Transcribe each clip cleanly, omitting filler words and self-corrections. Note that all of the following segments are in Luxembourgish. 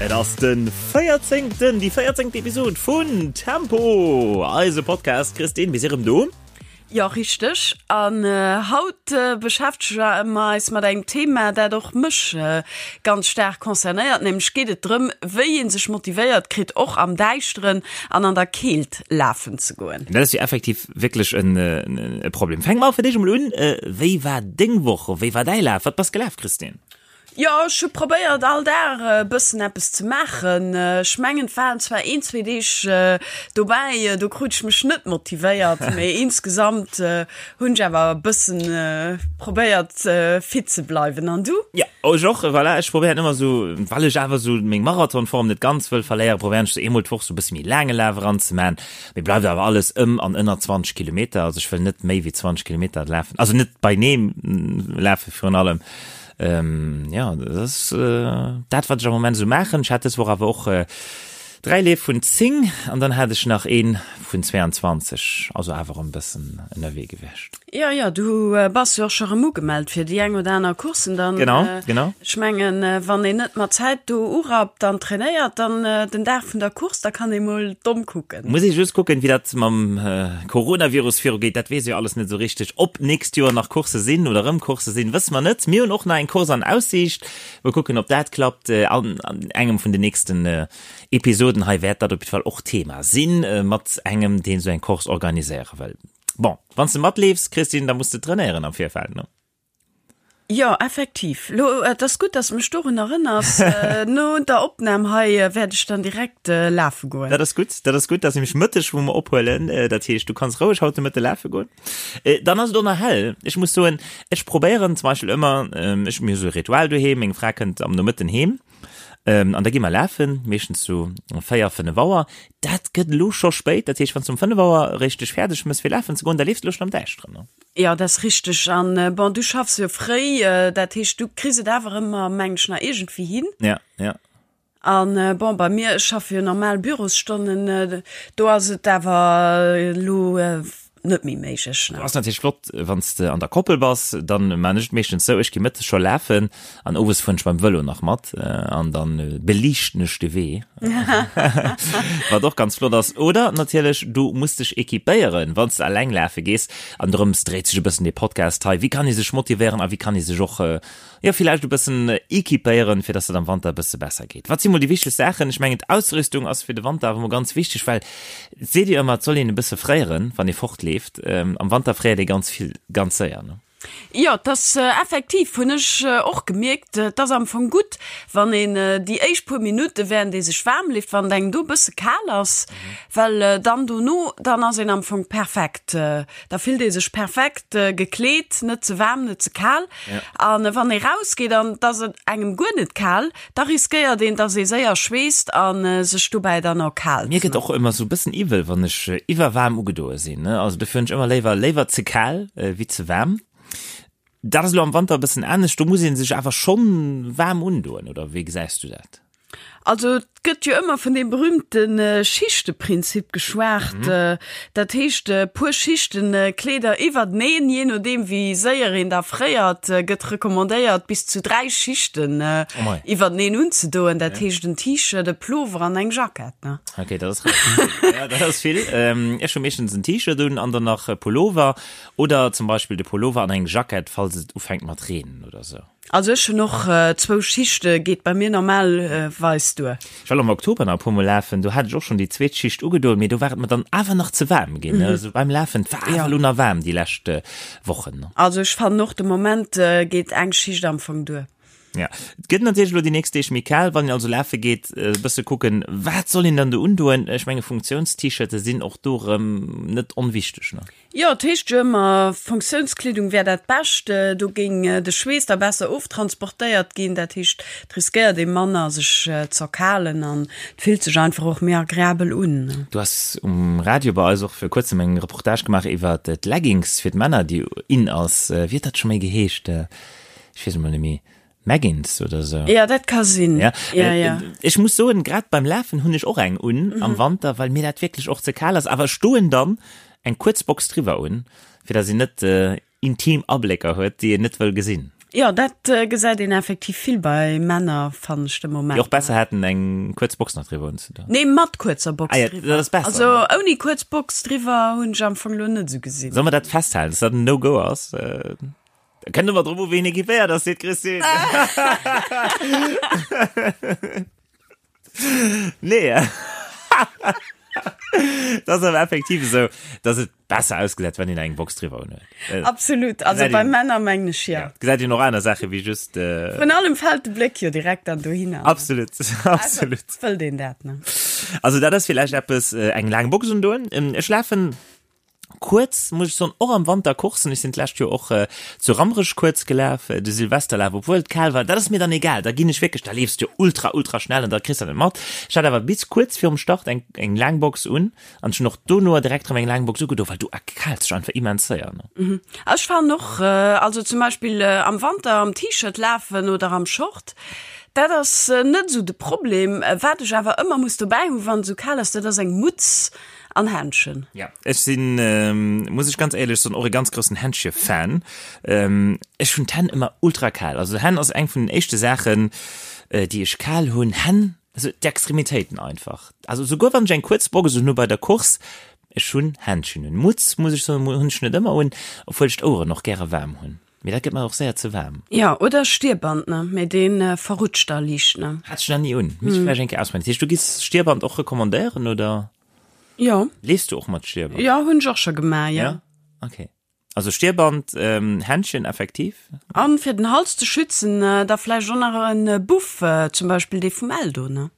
Et ass den 14. Déi 14. Episod vun Tempo, eise Podcast. Christine, mir si rëm do. Jo, richteg. An haut beschäftege mer eis mat engem Thema, dat och mech ganz staark concernéiert. Nämlech geet et drëm, wéi ee sech motivéiert kritt, och am Däischteren an an der Keelt lafen ze goen. Dat ass jo effektiv wierklech e Problem. Fänke mer fir d'éischt emol un, Wéi war deng Woch? Wéi war däi Laf? Wat bass gelaf, Christine? Jo, ech hu probéiert all Dag e bëssen eppes ze maachen. Ech mengen et waren zwar een, zwee Deeg dobäi, do krut ech mech net motivéiert, mee insgesamt hunn ech awer e bëssen probéiert fit ze bleiwen. An du? Jo, ech och, voilà. Ech probéieren ëmmer esou, well ech awer esou meng Marathonform net ganz wëll verléieren, probéieren ech esou eemol d'Woch esou e bësse méi laange Laf eranzemaachen. Mee bleift awer alles ëm an ënner 20 Kilometer. Also ech wëll net méi wéi 20 Kilometer lafen, also net beineem lafe virun allem. Jo, dat ass dat, wat ech am Moment esou maachen. Ech hat dës Woch awer och 3 Leef vun 10 an dann hat ech nach ee vun 22, also awer erëm e bëssen ënnerwee gewiescht. Jo, jo, du bass jo och scho rëm ugemellt fir déi eng oder aner Course dann. Genau, genau. Ech mengen, wann een net mat Zäit do urappt an trainéiert, dann den Dag vun der Course, da kann ee mol domm kucken. Muss ee just kucken, wéi dat mam Coronavirus virugeet, dat weess ee jo alles net esou richteg. Ob d'nächst Joer nach Coursse sinn oder erëm Coursse sinn, wësse mer net. Mir hunn och nach eng Course an Aussiicht. Mol kucken, ob dat klappt. An engem vun den nächsten Episoden hei wäert dat op jidde Fall och Thema sinn, mat engem, deen esou eng Course organiséiere wëll. Bon, wann s de matleefs, Christine, da muss de trainéieren am Virfeld, ne? Jo, effektiv. Lo, et ass gutt, dass de mech dorun erënners. No der Opnam hei wäert ech dann direkt lafe goen. Dat ass gutt, dat ass gutt. Dat ass nämlech mëtteg, wou mer ophuelen. Dat heescht, du kanns roueg haut de Mëtte lafe goen. Dann ass et och nach hell. Ech muss soen, ech probéieren zum Beispill ëmmer, ech, mir hu sou e Ritual doheem, meng Fra kënnt am Nomëtten heem, an da gi mer lafen, meeschtens sou 4, 5 Auer. Dat gëtt elo scho spéit. Dat heescht, wann s du um 5 Auer eréischt dech fäerdeg mëss fir lafen ze goen, da leefs de elo schonn am Däischteren, ne? Jo, dat ass richteg. An bon, du schaffs jo fréi, dat heescht, du kriss et awer ëmmer, meng ech, nach iergendwéi hin. Ja, ja. An bon, bei mir, ech schaffe jo normal Bürosstonnen, do ass et awer elo net méi méiglech. Do ass natierlech flott, wann s de an der Koppel bass, dann maan ech et meeschtens sou, ech gi mëttes scho lafen an owes fueren ech beim Vëlo nach mat an dann beliichten ech de Wee, wat och ganz flott ass. Oder natierlech, du muss dech equipéieren, wann s de alleng lafe gees. An drëms dréit sech e bëssen dee Podcast hei, Wéi kann ee sech motivéieren a wéi kann ee sech och, jo, villäicht e bëssen equipéieren, fir dass et am Wanter e bësse besser geet. Wat si mol déi wichtegst Saachen? Ech mengen, d'Ausrüstung ass fir de Wanter awer mol ganz wichteg, well et seet jo ëmmer, et soll een e bësse fréieren, wann ee fortleeft. Am Wanter fréiert ee ganz vill, ganz séier, ne? Jo, et ass effektiv, hunn ech och gemierkt, et ass am Fong gutt, wann een déi éischt puer Minutte während ee sech waarm leeft, wann et engem do e bësse kal ass, well dann dono, dann ass een am Fong perfekt, da fillt ee sech perfekt gekleet, net ze waarm, net ze kal. An wann ee rausgeet an et ass engem guer net kal, da riskéiert een, dass ee séier schweesst a sech dobäi dann erkaalt. Mir gëtt och ëmmer sou bëssen iwwel, wann ech iwwerwaarm ugedoe sinn. Also dofir hunn ech ëmmer léiwer léiwer ze kal wéi ze waarm. Dat ass elo am Wanter e bëssen anescht, do muss ee sech awer schonn waarm undoen, oder wéi gesäis du dat? Also et gëtt jo ëmmer vun deem berühmte Schichteprinzip geschwat. Dat heescht, e puer Schichten Kleeder iwwerteneen, jee nodeem wéi séier een da fréiert, gëtt recommandéiert bis zu 3 Schichten iwwerteneen unzedoen. Dat heescht en T-Shirt, e Plover an eng Jackett, ne? Ok, dat ass relativ vill. Ja, dat ass vill. Ech hu meeschtens en T-Shirt un an dann nach e Pullover oder zum Beispill de Pullover an eng Jackett, falls et ufänkt mat reenen oder sou. Also ech hunn och zwou Schichte, geet bei mir normalweis duer. Ech war am Oktober nach e puer mol lafen, do hat ech och schonn déi zweet Schicht ugedoen, mee do war et mer dann awer nach ze waarm ginn. Also beim Lafen, et war awer elo nach waarm déi lescht Wochen. Also ech fannen och de Moment geet eng Schicht am Fong duer. Ja, et gëtt natierlech elo déi nächst Deeg méi kal, wann een also lafe geet, e bësse kucken, wat soll een dann do undoen? Ech menge Funktiounst-T-Shirte sinn och do erëm net onwichteg, ne? Jo, et heescht jo ëmmer, Funktiounskleedung wär dat Bescht, do géing de Schweess da besser oftransportéiert ginn. Dat heescht, et riskéiert ee manner sech z'erkalen an et fillt sech einfach och méi agreabel un. Du has um Radio bei eis och vir kuerzem eng Reportage gemaach iwwer d'Leggings fir d'Männer, déi in ass. Wéi huet dat scho méi geheescht? Ech weess emol net méi. Meggins oder sou. Ja, dat ka sinn. Ja, ja, ja. Ech muss soen, grad beim Lafen hunn ech och eng un mm -hmm. am Wanter, well mir dat wierklech och ze kal ass. Awer ech doen dann eng kuerz Box driwwer un, fir datt een net äh, intim Ablécker huet, déi een net wëll gesinn. Jo, dat gesäit een effektiv vill bei Männer, fannen ech de Moment. Déi och besser hätten eng kuerz Box nach driwwer unzedoen. Nee, mat kuerzer Box Ah ja, driwwer. dat ass besser, Also ne? ouni kuerz Box driwwer hunn ech am Fong lo net esou gesinn. Solle mer dat festhalen, dass dat en No-Go ass? Da kënnt ëmmer drop u ween equipéiert ass, seet d'Christine. Nee. Dat ass awer effektiv esou, dass et besser ausgesäit, wann een eng Box driwwer un huet. Absolut, also Gesäit bei een- Männer mengen ech jo. Ja, gesäit een och aner Saache wéi just. Äh, Vrun allem fält de Bléck jo direkt dann dohinner. absolut, absolut. Also, wëllt een dat, ne? Also dat ass villäicht eppes, äh, eng laang Box undoen. Ähm, Ech lafen Kuerz, muss ech soen, och am Wanter Coursen. Ech sinn d'lescht Joer och zu Rammerech kuerz gelaf, de Silvesterlaf, obwuel et kal war. Dat ass mir dann egal, da ginn ech wierklech, da leefs du jo ultra, ultra schnell an da kriss de dat net mat. Ech hat awer bis kuerz virum Start eng, eng laang Box un an ech hunn och dono direkt erëm eng laang Box ugedo, well du erkaalts dech einfach immens séier, ne. Ech fannen och, also zum Beispill am Wanter am T-Shirt lafen oder am Short, dat ass net esou de Problem. Wat ech awer ëmmer muss dobäi hunn, wann et esou kal ass, dat ass eng Mutz An Händschen. Ja, ech sinn, muss ech ganz éierlech soen, och e ganz groussen Händche-Fan. Ech hunn d'Hänn ëmmer ultra kal. Also Hänn ass eng vun den éischte Saachen, déi ech kal hunn. Hänn, also d'Extremitéiten einfach. Also souguer wann ech eng kuerz Box un hu bei der Course, ech hunn Händschen un. Mutz, muss ech soen, hunn ech net ëmmer un, obwuel ech d'Oueren och gäre waarm hunn. Mee dat gëtt mer och séier ze waarm. Jo, oder Stierband, ne? Mee dee verrutscht da liicht, ne? Hat ech nach ni un. Misst ech vläicht eng Kéier ausprobieren. Dat heescht, du giss Stierband och recommandéieren, oder? Jo. Leefs du och mat Stierband? Jo, hunn ech och scho gemaach, jo. Ja? Okay. Also Stierband, Händchen effektiv. An fir den Hals ze schützen, da vläicht och nach en Buff, zum Beispill dee vum Eldo, ne?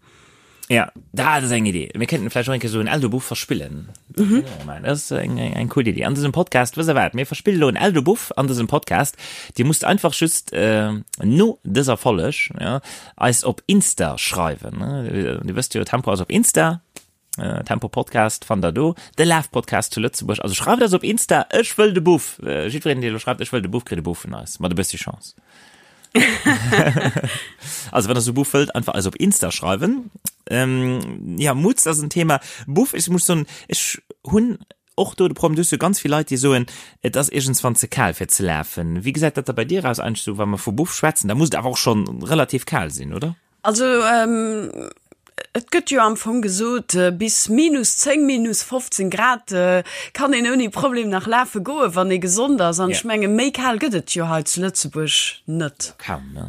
Ja, dat ass eng Idee. Mir kéinten vläicht och eng Kéier esou en Eldo-Buff verspillen. Mhm. Dat ass eng, eng, eng cool Idee. An dësem Podcast, wësst der wat, mir verspille lo en Eldo-Buff an dësem Podcast. Dir musst einfach just äh, no dëser Folleg ja, eis op Insta schreiwen. Ne? Dir wësst jo, Tempo ass op Insta. Äh, Tempo Podcast fannt der do. De Laf-Podcast zu Lëtzebuerg. Also schreift eis op Insta, ech wëll de Buff. Äh, jiddwereen, dee lo schreift, ech wëll de Buff, kritt e Buff vun eis. Mat e bëssi Chance. Also wann der sou Buff wëllt, einfach eis op Insta schreiwen. Ähm, ja, Mutz ass en Thema. Buff, ech muss soen, ech hunn och do de Problem, du hues jo ganz vill Leit, déi soen, et ass iergendswann ze kal fir ze lafen. Wéi gesäit dat da bei dir aus eigentlech sou, wa mer vu Buff schwätzen? Da muss et awer och schonn relativ kal sinn, oder? Also et gëtt jo am Fong gesot, bis minus 10, minus 15 Grad kann een ouni Problem nach lafe goen, wann ee gesond ass. An ech menge méi kal gëtt et jo hei zu Lëtzebuerg net. Kaum, ne?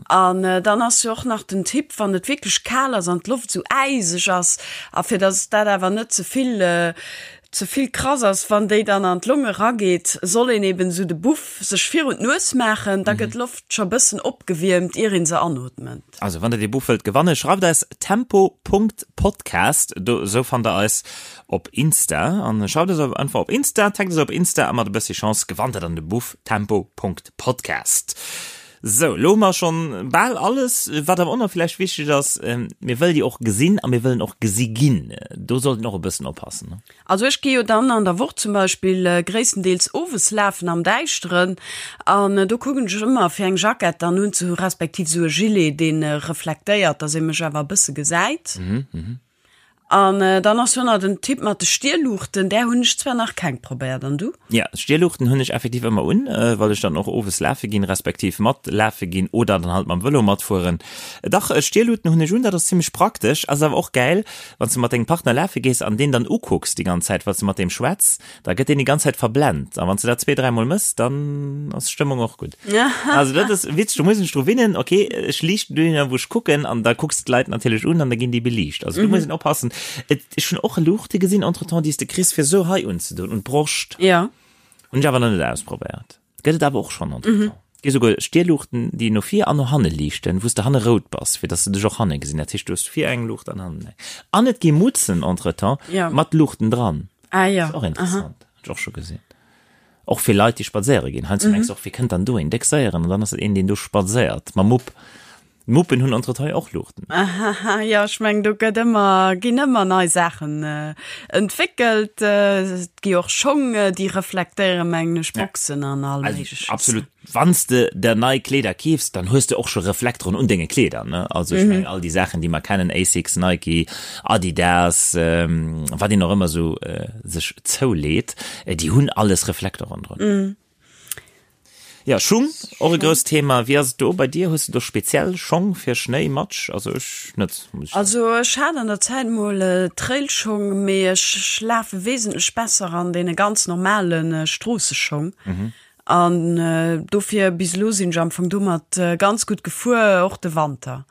An dann ass jo och nach den Tipp, wann et wierklech kal ass an d'Loft esou äiseg ass, a fir datt dat awer net ze vill ze vill krass ass, wann déi dann an d'Longe rageet, soll een eben esou de Buff sech virun d'Nues maachen, da gëtt d'Loft scho bëssen opgewiermt, ier een se anootment. Also wann der dee Buff wëllt gewannen, schreift eis tempo.podcast, do esou fannt der eis op Insta, an schreift eis einfach op Insta, taggt eis op Insta a mat e bëssi Chance gewannt der dann de Buff tempo.podcast. Sou, elo hu mer schonn bal alles. Wat awer och nach villäicht wichteg ass, mir wëlle jo och gesinn a mir wëllen och gesi ginn. Do sollt een och e bëssen oppassen, ne? Also ech gi jo dann an der Woch zum Beispill gréisstendeels owes lafen am Däischteren an do kucken ech ëmmer fir eng Jackett dann unzehu respektiv esou e Gilet, dee reflektéiert, dass ee mech awer e bësse gesäit. An dann ass jo nach den Tipp mat de Stierluuchten, där hunn ech zwar nach keng probéiert, an du? Ja, Stierluuchten hunn ech effektiv ëmmer un, well ech dann och owes lafe ginn, respektiv mat lafe ginn oder dann halt mam Vëlo matfueren. Dach, Stierluuten hunn ech un, dat ass zimmlech praktesch, ass awer och gäil, wann s de mat dengem Partner lafe gees an deen dann ukucks déi ganz Zäit, well s de mat deem schwätz, Da gëtt deen déi ganz Zäit verblent. A wann s de dat zwee, dräimol mëss, dann ass d'Stëmmung och gutt. Also dat ass witzeg, do muss een sech dru winnen, okay, ech liichten dohinner, wou ech kucken, an da kucks de d'Leit natierlech un an da ginn déi beliicht. Also do muss een oppassen. Et, ech hunn och Luuchte gesinn entretemps, déi s de kriss, fir esou hei unzedoen, un d'Broscht. Ja. Hunn ech awer nach net ausprobéiert. Gëtt et awer och schonn entretemps. Et gi souguer Stierluuchten, déi no vir an no hanne liichten, wou s de hanne rout bass, fir dass se dech och hanne gesinn. Dat heescht, du hues vir eng Luucht an hannen eng. An et gi Mutzen entretemps mat Luuchten dran. Ah jo. Ass och interessant. Hunn ech och scho gesinn. Och fir Leit, déi spadséiere ginn. Heiansdo mengs de och, wie kënnt dann do een déck séieren? An dann ass et een, deen do spadséiert mam Mupp. D'Muppen hunn entretemps och Luuchten. Ahaha, jo, ech mengen, do gëtt ëmmer, ginn ëmmer nei Saachen entwéckelt. Et gi och Schong, déi reflektéieren, mengen ech, Boxen an all Méigleches. Absolut. Wann s de der nei Kleeder keefs, dann hues de och scho Reflekteren un denge Kleeder, ne? Also ech mengen, all déi Saachen, déi mer kennen, Asics, Nike, Adidas, wat een och ëmmer esou sech zouleet, déi hunn alles Reflekteren drun. Ja, Schung, och e grousst Thema. Wéi ass et do bei dir? Hues de do speziell Schong fir Schnéi, Matsch? Also ech net, muss ech soen. Also ech hat an der Zäit mol Trailschong, mee ech lafe wesentlech besser an deene ganz normale Stroosseschong. An dofir bis elo sinn ech am Fong domat ganz gutt gefuer, och de Wanter.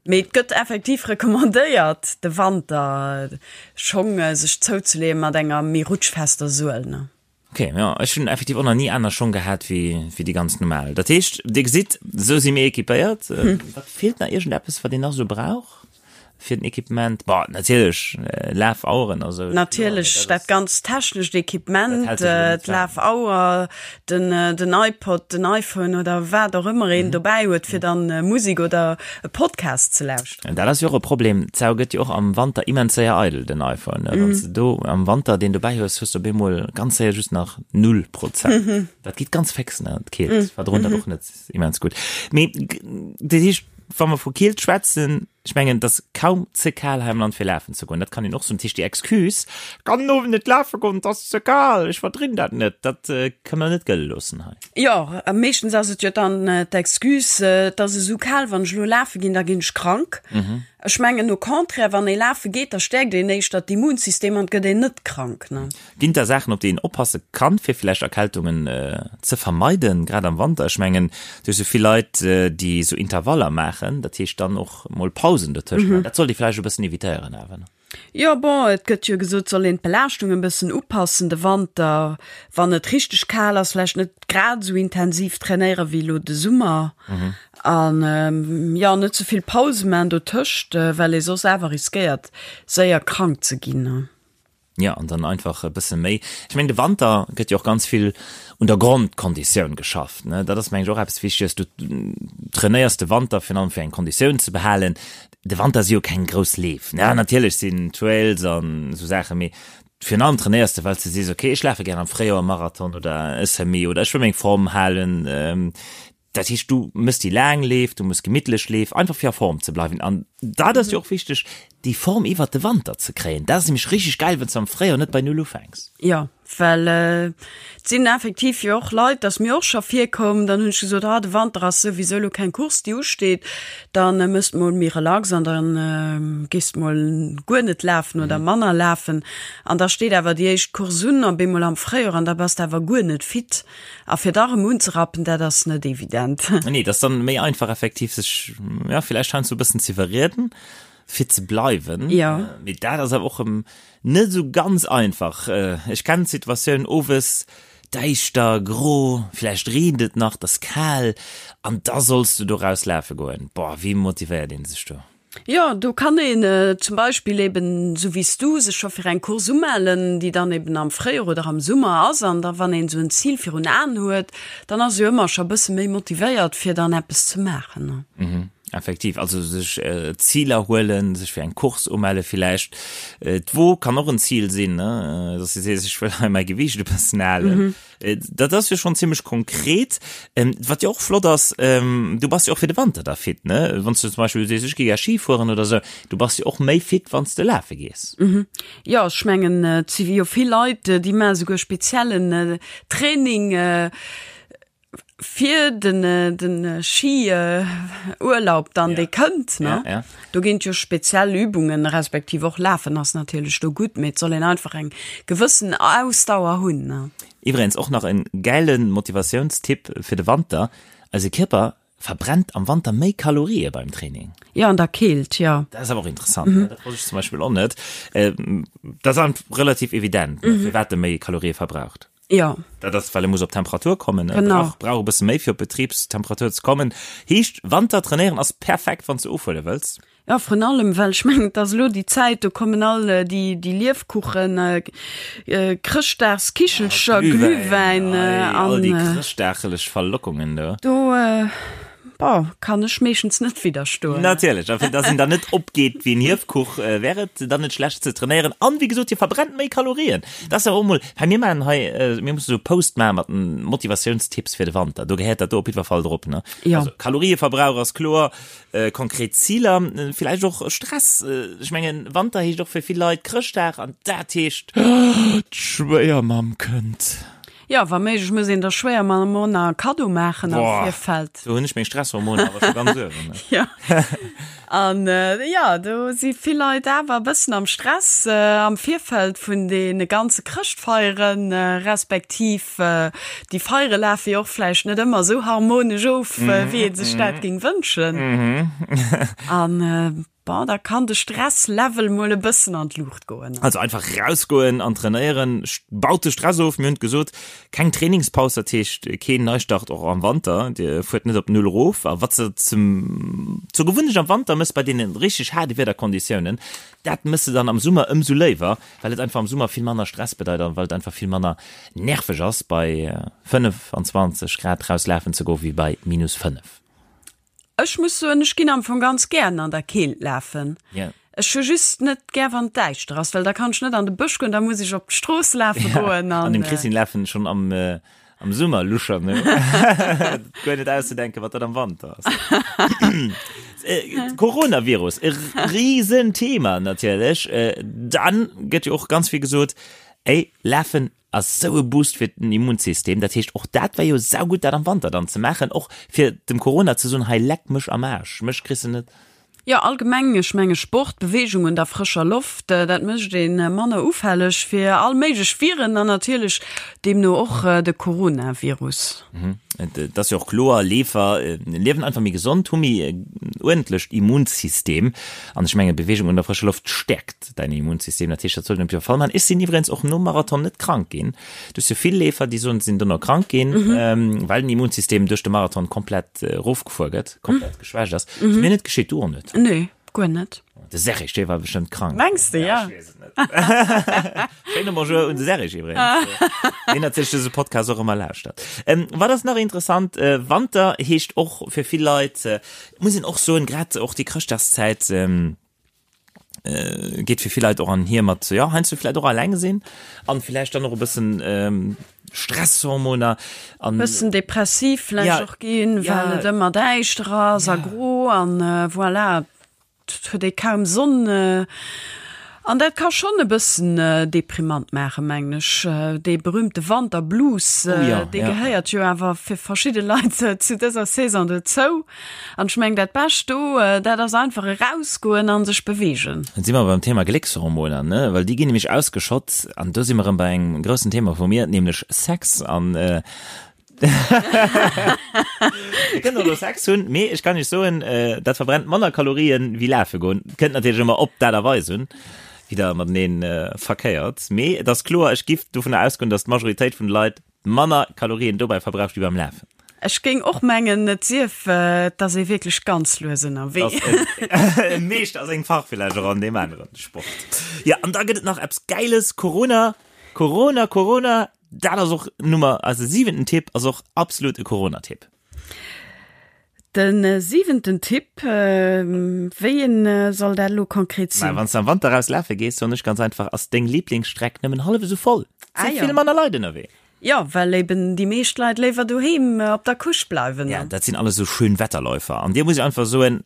Mee et gëtt effektiv recommandéiert, de Wanter Schong sech zouzeleeë mat enger méi rutschfester Suel, ne? Ok, jo, ech hunn effektiv och nach ni aner Schong gehat wéi wéi déi ganz normal. Dat heescht, Dir gesitt, esou si mir equipéiert. Wat feelt nach? Iergendeppes, wat een nach esou brauch fir den Equipement? Bon, natierlech Lafaueren a sou. Natierlech dat ganz technescht Equipement, d'Lafauer, den den iPod, den iPhone oder wat och ëmmer een dobäi huet, fir dann Musek oder e Podcast ze lauschteren. Dat ass jo och e Problem, d'Sau gëtt jo och am Wanter immens séier eidel, den iPhone. Wann s de do am Wanter deen dobäi hues, hues de op eemol ganz séier just nach null Prozent. Dat geet ganz féx, ne, d'Keelt verdroen dat och net immens gutt. Mee dat heescht, wa mer vu Keelt schwätzen, Ech mengen, et ass kaum ze kal hei am Land fir lafen ze goen. Dat kann een och soen. Dat heescht, déi Excuse, ech kann den Owend net lafe goen, et ass ze kal, ech verdrinn dat net, dat kënne mer net gëlle loossen hei. Jo, a meeschtens ass et jo dann d'Excuse, et ass esou kal, wann ech elo lafe ginn, da ginn ech krank. Ech mengen au contraire, wann ee lafe geet, da stäerkt een éischter d'Immunsystem an et gëtt een net krank, ne? Ginn et da Saachen, op déi een oppasse kann, fir vläicht Erkältungen ze vermeiden, grad am Wanter? Ech mengen, du hues jo vill Leit, déi esou Intervaller maachen, dat heescht dann och mol Pausen dotëscht maachen. Dat sollt ee vläicht e bëssen evitéieren awer, ne? Jo, bon, et gëtt jo gesot, soll een d'Belaaschtung e bëssen upassen de Wanter, wann et richteg kal ass, vläicht net grad esou intensiv trainéiere wéi elo de Summer an, jo, net ze vill Pause maachen dotëscht, well ee soss awer riskéiert, séier krank ze ginn. Jo, an dann einfach e bësse méi. Ech mengen, de Wanter gëtt jo och ganz vill un der Grondkonditioun geschafft, ne? Dat ass, mengen ech, och eppes Wichteges. Du trainéiers de Wanter virun allem, fir eng Konditioun ze behalen. De Wanter si jo keng grouss Leef, ne? Natierlech sinn Trails an esou Saachen, mee virun allem trainéiers de, well s de sees, okay, ech lafe gär am Fréijoer e Marathon oder e Semi oder ech wëll meng Form halen. Dat heescht, du mëss déi laang Leef, du muss gemittlech Leef, einfach fir a Form ze bleiwen. An dat ass jo och wichteg, déi Form iwwert de Wanter ze kréien. Dat ass nämlech richteg gäil, wann s de am Fréijoer net bei Null ufänks. Jo, well et sinn effektiv jo och Leit, dat ass mir och scho virkomm, dann hunn ech gesot, ah de Wanter ass souwisou elo keng Course déi usteet, da mëss de mol méi relax an da gees de mol guer net lafen oder manner lafen. An da steet awer déi éischt Course un op eemol am Fréijoer an da bass de awer guer net fit. A fir da rëm unzerappen, dat ass net evident. Nee, dat ass dann méi einfach effektiv sech, ja, villäicht heiansdo e bëssen z'iwwerrieden, fir ze bleiwen. Ja. Mee dat ass awer och erëm net esou ganz einfach. Ech kennen d'Situatioun, owes, däischter, gro, villäicht reent et nach, et ass kal an da solls du doraus lafe goen. Boah, wéi motivéiert ee sech do? Jo, do kann een zum Beispill eben, esou wéi s du, sech scho fir eng Course umellen, déi dann eben am Fréijoer oder am Summer ass. An da wann een esou en Zil virun Aen huet, dann ass ee jo ëmmer scho e bësse méi motivéiert, fir dann eppes ze maachen. Mhm, effektiv. Also sech Ziler huelen, sech fir eng Course umelle villäicht. D'Wo kann och en Zil sinn, ne, dass du sees, ech wëll hei mäi Gewiicht e bëssen halen. Dat ass jo schonn zimmlech konkret. Wat jo och flott ass, du bass jo och fir de Wanter da fit, ne? Wann s du zum Beispill sees, ech gi gär Ski fueren oder esou, du bass jo och méi fit, wann s de lafe gees. Jo, ech mengen, et si jo vill Leit, déi maache souguer speziellen Training fir den, den Ski-Urlaub dann, dee kënnt, ne? Do ginn et jo speziell Übungen, respektiv och Lafen ass natierlech do gutt, mee et soll een einfach eng gewëssen Ausdauer hunn. Iwwregens och nach en gäilen Motivatiounstipp fir de Wanter, Eise Kierper verbrennt am Wanter méi Kalorië beim Training. Jo, an der Keelt, jo. Dat ass awer och interessant, ne? Dat wosst ech zum Beispill och net. Dat ass relativ evident, ne, firwat e méi Kalorië verbraucht. Jo. Dat ass, well e muss op Temperatur kommen. E brauch, brauch e bësse méi, fir op Betribstemperatur ze kommen. Heescht, Wanter trainéieren ass perfekt, wann s de ofhuele wëlls. Jo, vrun allem, well ech mengen, et ass elo déi Zäit, do kommen all déi, déi Liefkuchen, Chrëschtdagskichelcher, Glühwäin an. All déi chrëschtdagelech Verlockungen do. Do, bon, kann ech meeschtens net widderstoen. Natierlech, a fir dass een dann net opgeet wéi en Hiefkuch, wär et dann net schlecht ze trainéieren. An, wéi gesot, hie verbrennt méi Kalorien. Dat ass awer och mol, hei mir maachen hei, mir musse sou Post maache mat den Motivatiounstipps fir de Wanter. Do gehéiert dat do op jiddwer Fall drop, ne? Jo. Also Kalorieverbrauch ass kloer, konkret Ziler, villäicht och Stress. Ech mengen, Wanter heescht och fir vill Leit Chrëschtdag an dat heescht, d'Schwéiermamm kënnt. Jo, wa méiglech muss een der Schwéiermamm och nach e Kaddo maachen am Virfeld. Do hunn ech meng Stresshormoner awer scho ganz uewen. Jo. An jo, do si vill Leit awer e bëssen am Stress am Virfeld vun deene ganze Chrëschtfeieren, respektiv déi Feiere lafe jo och vläicht net ëmmer esou harmonesch of, wéi ee sech dat géing wënschen. An Bon, da kann de Stresslevel mol e bëssen an d'Luucht goen. Also einfach rausgoen an trainéieren baut de Stress of. Mir hunn et gesot, keng Trainingspaus, dat heescht keen Neistart och am Wanter. Dir fuert net op Null erof. A wat s de zum, zur Gewunnecht am Wanter mëss bei deene richteg haarde Wiederkonditiounen, dat mëss de dann am Summer ëmsou léiwer, well et einfach am Summer vill manner Stress bedeit an well et einfach vill manner nerveg ass bei 25 Grad rauslafen ze goen, wéi bei minus 5. Ech muss soen, ech ginn am Fong ganz gären an der Keelt lafen. Yeah. Ech hu just net gär wann et däischter ass, well da kann ech net an de Bësch goen, da muss ech op d'Strooss lafe goen. An dem Christine lafen schonn am am Summer Luscher, ne? Guer net auszedenken, wat dat am Wanter ass. Coronavirus, e Riesenthema natierlech. Dann gëtt jo och ganz vill gesot, ey, lafen Ass sou e Boost fir den Immunsystem. Dat heescht och dat wär jo saugutt dat am Wanter dann ze maachen, och fir dem Corona ze soen, hei leck mech am Aarsch, mech kriss de net. Jo allgemeng, ech menge Sport, Beweegung un der frëscher Loft, dat mécht ee manner ufälleg fir all méiglech Viren an natierlech deemno och de Coronavirus. Et ass jo och kloer, Leefer liewen einfach méi gesond, hu méi uerdentlecht Immunsystem an ech menge Beweegung un der frëscher Loft stäerkt däin Immunsystem, dat heescht dat sollt een op jidder Fall maachen. Ech sinn iwwregens och nom Marathon net krank ginn. Du hues jo vill Leefer, déi soen, se sinn dono krank ginn, well den Immunsystem duerch de Marathon komplett erofgefuer gëtt, komplett geschwächt ass. Ass mir net geschitt, du och net? Nee, guer net. De Serge, dee war bestëmmt krank. Mengs de, ja? Ech weess et net. Schéine Bonjour un de Serge iwwregens, deen natierlech dëse Podcast och ëmmer lauschtert. Wat ass nach interessant? Wanter heescht och fir vill Leit, muss een och soen, grad och déi Chrëschtdagszäit, geet fir vill Leit och an hier mat ja heiansdo vläicht och alleng sinn an vläicht dann och e bëssen Stresshormoner an Bëssen depressiv vläicht ja, och ginn, well ja, et ëmmer däischter ass a ja. gro an voilà, et huet ee kaum Sonn. An dat ka schonn e bëssen deprimant maachen, mengen ech. Dee berühmte Wanterblues, oh ja, dee ja. gehéiert jo awer fir verschidde Leit zu dëser Saison dozou. An ech mengen dat Bescht do, dat ass einfach erausgoen a sech beweegen. Dann si mer beim Thema Gléckshormoner, ne? Well déi ginn nämlech ausgeschott an do si mer erëm bei engem groussen Thema vu mir, nämlech Sex an Dir kënnt och elo Sex hunn, mee ech kann iech soen, dat verbrennt manner Kalorien wéi lafe goen. Kënnt natierlech ëmmer op d'Aart a Weis un, wéi der matenee verkéiert, mee et ass kloer, ech giff dovunner ausgoen, datt d'Majoritéit vun de Leit manner Kalorien dobäi verbraucht wéi beim Lafen. Ech géing och mengen, et sief, et ass ee wierklech ganz lues ënnerwee. E Meeschter a sengem Fach villäicht och an deem aneren Sport. Jo, an da gëtt et nach eppes Gäiles, Corona, Corona, Corona, dat ass och Nummer, eise siwenten Tipp ass och absolut e Corona-Tipp. De siwenten Tipp, wéi een soll dat elo konkret sinn? Wann s de am Wanter raus lafe gees, soen ech ganz einfach, ass deng Liblingsstreck nëmmen hallef esou voll. Et si vill manner Leit ënnerwee. Jo, well eben déi meescht Leit léiwer doheem op der Couche bleiwen. Ja, dat sinn alles esou schön Wetterläufer. An dir muss ech einfach soen,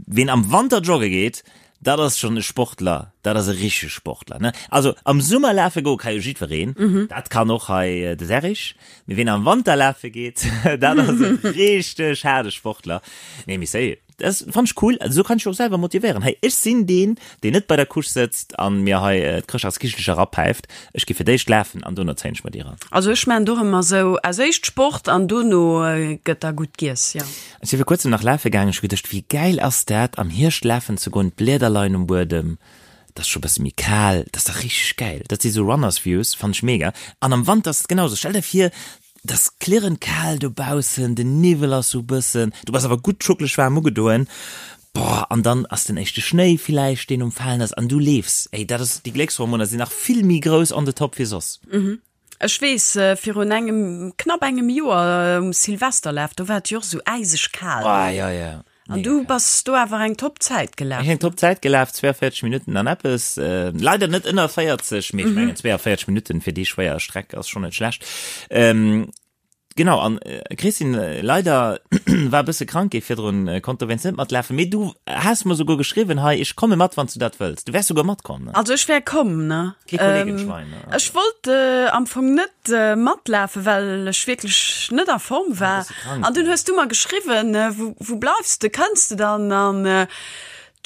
ween am Wanter jogge geet, dat ass schonn e Sportler, dat ass e richtege Sportler, ne? Also am Summer lafe goe ka jo jiddwereen, dat kann och hei de Serrig, mee ween am Wanter lafe geet, dat ass e richteg haarde Sportler. Nee, mee sérieux, dat fann ech cool, esou kann ech mech och selwer motivéieren. Hey, ech sinn deen, deen net bei der Couche sëtzt an mir hei d'Chrëschtdagskichelcher erapäift, ech gi fir d'éischt lafen an dono zéien ech mer déi eran. Also ech maan et och ëmmer esou, als éischt Sport an dono gëtt da gutt giess, jo. Ech si vir kuerzem nach lafe gaangen, ech hu geduecht, wéi gäil ass dat am Hierscht lafen ze goen, d'Blieder leien um Buedem, et ass scho bësse méi kal, dat ass dach richteg gäil. Dat si sou Runners Views, fannen ech mega. An am Wanter ass et genau sou, stell der vir, et ass klirrend kal dobaussen, den Niwwel ass sou bëssen, du bass awer gutt schuckeleg waarm ugedoen, boah, an dann ass den éischte Schnéi villäicht, deen um Falen ass an du leefs, ey, dat ass, déi Gléckshormoner sinn nach vill méi grouss on the top wéi soss. Ech weess, virun engem, knapp engem Joer um Silvesterlaf, do war et jo och esou äiseg kal. Ah, jo, jo. An du bass do awer eng top Zäit gelaf. Ech eng top Zäit gelaf, 42 Minutten an eppes. Leider net ënner 40, mee ech mengen 42 Minutten fir déi schwéier Streck ass schonn net schlecht. Genau, an Christine, leider war e bësse krank gi virdrun, konnt dowéinst net matlafen, mee du has mer souguer geschriwwen hei, ech komme mat, wann s du dat wëlls. Du wäers souguer matkomm, ne? Also ech wär komm, ne? Kee Kollegenschwein, ne? Ech wollt am Fong net matlafen, well ech wierklech net a Form war. An dunn hues du mer geschriwwen, wou, wou bleifs de, kënns de dann? An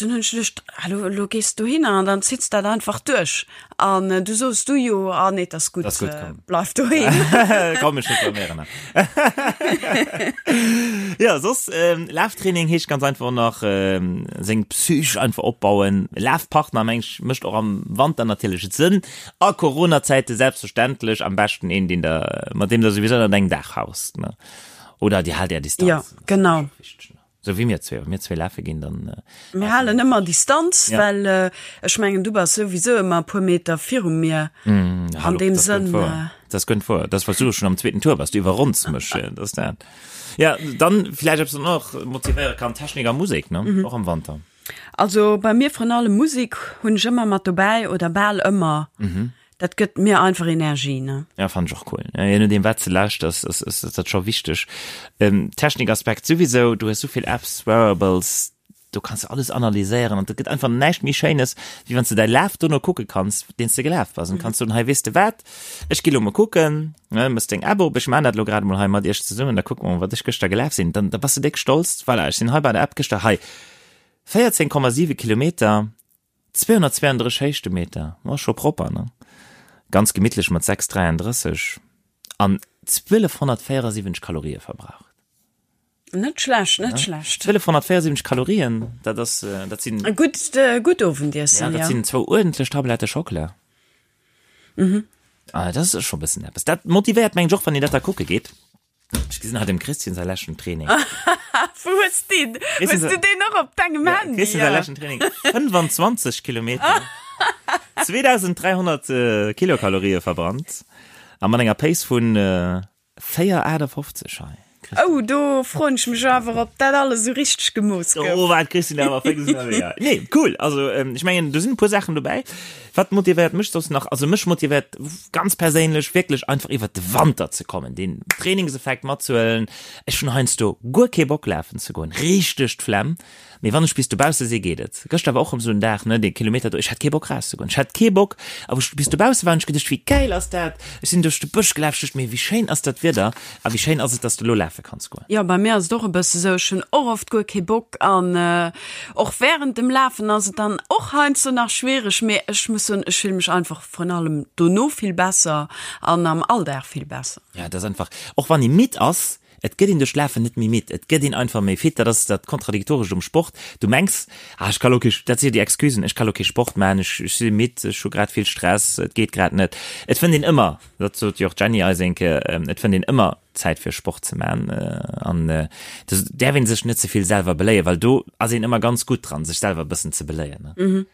dunn hunn ech geduecht, ah lo, lo gees de dohinner an dann zitts dat einfach duerch. An du soos du jo, ah nee, 't ass gutt, Ass gutt, komm. bleif doheem. Komm, ech reklaméieren nach. Ja, soss, Laftraining heescht ganz einfach och nach, seng Psych einfach opbauen. Lafpartner, meng ech, mécht och am Wanter natierlech Sënn. A Coronazäite selbstverständlech am beschten een, deen der, mat deem der souwisou ënnert engem Daach haust, ne? Oder dir haalt är Distanz. Ja, genau. Sou wéi mir zwee, wa mir zwee lafe ginn, dann. Mir halen ëmmer Distanz, ja. well äh, ech mengen, du bass souwisou ëmmer e puer Meter viru mir. Mm, An hallo, deem Sënn. Äh, das kënnt vor. Das was du schon am zweeten Tour bass, du iwwerronns mech. Das dat. Ja, dann vielleicht ob es noch motivéiere kann Technik a Musek, ne? Mhm. Och am Wanter. Also bei mir vrun allem Musik hunn ech ëmmer mat dobäi oder bal ëmmer. Mhm. Dat gëtt mir einfach Energie, ne? Ja, fand ech och cool. Ja, je nodeem wat se lauschters, ass, ass, ass dat scho wichteg. Ähm, Technikaspekt souwisou, du hues souvill Apps, Wearables, do kanns du alles analyséieren an et gëtt einfach näischt méi Schéines, wéi wann s du däi Laf dono kucke kanns, deen s de gelaf bass. An kanns soen, hei, weess de wat, ech gi lo mol kucken, ne, mëss deng App op, ech maan dat lo grad emol hei mat iech zesummen, da kucke mer mol, wat ech gëschter gelaf sinn. Dann, da bass de déck stolz, voilà, ech sinn hei bei der App gëschter, hei, 14,7 Kilometer, 232 Héichtemeter, ma scho propper, ne? Ganz gemittlech mat 6,33 an 1274 Kalorië verbraucht. Net schlecht, net schlecht. 1274 Kalorien, dat ass, dat sinn. E gutt, gutt Owendiessen, ja. Dat sinn zwou uerdentlech Tablette Schockela. Mhm. Ah, dat ass scho e bëssen eppes. Dat motivéiert, mengen ech, och wann een dat da kucke geet. Ech gesinn hei dem Christian säi leschten Training. Wou hues deen? Hues du deen och op dengem ja, Handy? Christian säi leschten Training. 25 Kilometer. 2300 äh, Kilokalorië verbrannt. A mat enger Pace vun äh, 4,58 hei. Oh, do froen ech mech awer, ob dat alles esou richteg gemooss gouf. Oh, wat Christine awer féx ënnerwee. Ja. Nee, cool. Also, ähm, ech mengen, do sinn e puer Saachen dobäi. Wat motivéiert mech soss nach? Also mech motivéiert ganz perséinlech wierklech einfach iwwert de Wanter ze kommen, deen Trainingseffekt matzehuelen. Ech hunn heiansdo guer kee Bock lafen ze goen, richteg d'Flemm. Mee wann ech bis dobausse si geet et. Gëschter war och rëm esou en Dag, ne, dee Kilometer do, ech hat kee Bock rauszegoen. Ech hat kee Bock a wou ech bis dobausse war hunn ech geduecht, wéi gäil ass dat? Ech sinn duerch de Bësch gelaf, ech duecht mir, wéi schéin ass dat Wieder a wéi schéin ass et, dass de elo lafe kanns goen. Jo, bei mir ass et och e bësse sou, ech hunn och oft guer kee Bock an och wärend dem Lafen ass et dann och heiansdo nach schwiereg, mee ech muss soen, ech fille mech einfach vrun allem dono vill besser an am Alldag vill besser. Ja, et ass einfach, och wann ee midd ass, et gëtt een duerch d'Lafen net méi midd, et gëtt een einfach méi fit. Dat ass dat Kontradiktorescht um Sport. Du mengs, ah ech ka lo kee, dat si jo déi Excusen, ech ka lo kee Sport maachen, ech ech si midd, ech hu grad vill Stress, et geet grad net. Et fënnt een ëmmer, dat sot jo och d'Jenny eis eng Kéier, et fënnt een ëmmer Zäit fir Sport ze man an do däerf een sech net ze vill selwer beléien, well do ass een ëmmer ganz gutt dran, sech selwer e bëssen ze beléien. Ne?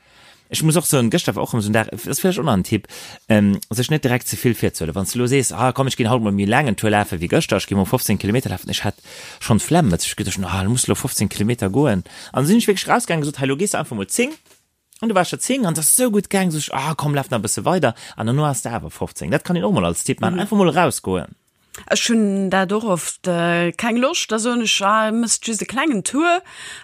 Ech muss och soen, gëschter war och erëm esou en Dag, dat ass vläicht och nach en Tipp, sech net direkt ze vill virzehuelen. Wann s de elo sees, ah komm ech ginn haut mol méi laang en Tour lafe wéi gëschter, ech gi mol 15 Kilometer lafen, ech hat schonn d'Flemm, ech geduecht, ah lo muss de elo 15 Kilometer goen. An da sinn ech wierklech rausgaangen, gesot, hei lo gees de einfach mol 10, An du waars scho 10 an et ass esou gutt gaang, sot ech, ah komm laf nach e bësse weider an dono ass de awer 15. Dat kann een och mol als Tipp maachen, einfach mol erausgoen. Ech hunn dat och oft, keng Loscht, da soen ech, ah mëss just e klengen Tour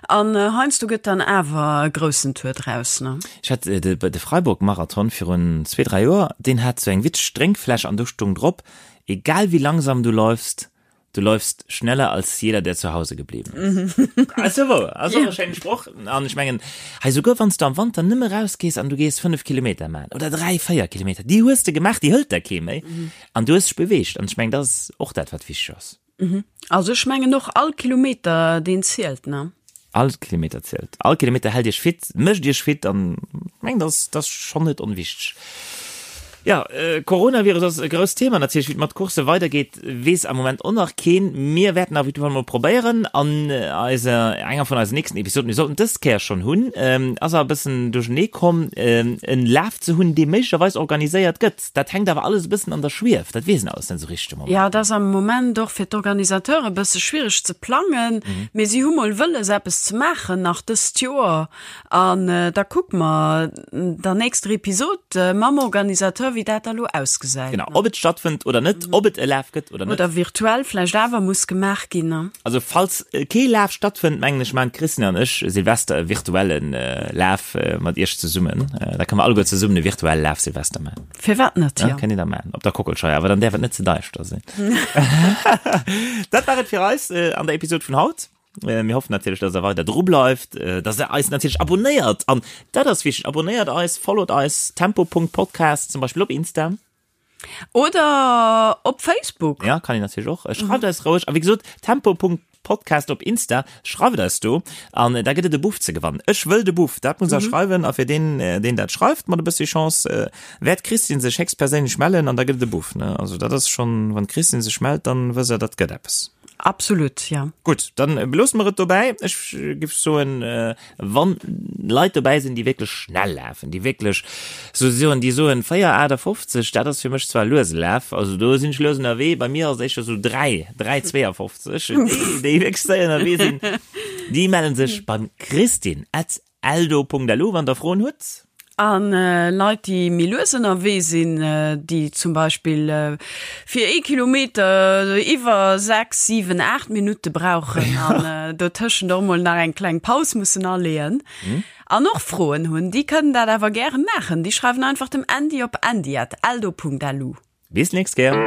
an heiansdo gëtt dann awer e groussen Tour draus, ne. Ech hat de Freiburg-Marathon virun zwee, dräi Joer, deen hat sou eng witzeg Drénkfläsch an do stung drop, egal wie langsam du läufst, Du läufst schneller als jeder, der zu Hause geblieben ist. Ass jo wouer, ass och e schéine Sproch. An ech mengen, hei souguer wann s du am Wanter nëmme rausgees an du gees 5 Kilometer maachen oder 3, 4 Kilometer, déi hues de gemaach, déi hëlt der kee méi an du hues dech beweegt. An ech mengen, dat ass och dat, wat wichteg ass. Also ech mengen och, all Kilometer, deen zielt, ne? All Kilometer zielt. All Kilometer hält iech fit, mécht iech fit an meng dat ass schonn net onwichteg. Jo, Coronavirus ass e grousst Thema natierlech. Wéi et mat Coursse weidergeet, weess am Moment och nach keen. Mir wäerten auf jeden Fall mol probéieren an eiser, enger vun eisen nächsten Episoden, mir sollten dës Kéier schonn hunn, ass awer e bëssen duerchernee komm, en Laf ze hunn, dee méiglecherweis organiséiert gëtt. Dat hänkt awer alles e bëssen an der Schwief, dat weess een alles net esou richteg de Moment. Jo, et ass am Moment och fir d'Organisateure e bësse schwiereg ze plangen, mee si hu mol wëlles eppes ze maachen nach dëst Joer an da kucke mer der nächster Episod mam Organisateur. wéi dat da lo ausgesäit. Genau, ob et stattfënnt oder net, ob et e Laf gëtt oder net. Oder virtuell vläicht awer muss gemaach ginn, ne? Also falls kee Laf stattfënnt, mengen ech, maachen d'Christine an ech Silvester e virtuelle Laf mat iech zesummen. Da kënne mer alleguer zesummen e virtuelle Laf Silvester maachen. Firwat net, jo. Kënnt dir da maachen op der Kockelscheier, awer dann däerf et net ze däischter sinn. Dat war et fir eis an der Episod vun haut. Mir hoffen natierlech, dass der weider dru bleift, dass der eis natierlech abonnéiert an dat ass wichteg, abonnéiert eis, followt eis, tempo.podcast zum Beispill op Insta. Oder op Facebook. Ja, kann een natierlech och. Schreift eis roueg. A wéi gesot, tempo.podcast op Insta, schreift eis do an da gëtt et e Buff ze gewannen. Ech wëll de Buff, dat muss der schreiwen a fir deen, deen dat schreift mat e bëssi Chance, wäert d'Christine sech héchstperséinlech mellen an da gëtt et e Buff, ne? Also dat ass schonn, wann d'Christine sech mellt, dann wësst der, dat gëtt eppes. Absolut, ja. Gutt, dann beloosse mer et dobäi. Ech giff soen, wann Leit dobäi sinn, déi wierklech schnell lafen, déi wierklech sou soen, déi soen 4,58, dat ass fir mech zwar luese Laf, also do sinn ech lues ënnerwee, bei mir ass et éischter sou 3, 3,52, déi, déi wierklech séier ënnerwee sinn, déi mellen sech beim Christine at Eldo.lu wann der Froen hutt. A Leit déi méi lues ënnerwee sinn, déi zum Beispill fir ee Kilometer iwwer 6, 7, 8 Minutte brauchen an dotëschent och mol nach eng kleng Paus mussen aleeën an och Froen hunn, déi kënnen dat awer gäre maachen. Déi schreiwen einfach dem Andy op andy at eldo.lu. Bis nächst Kéier.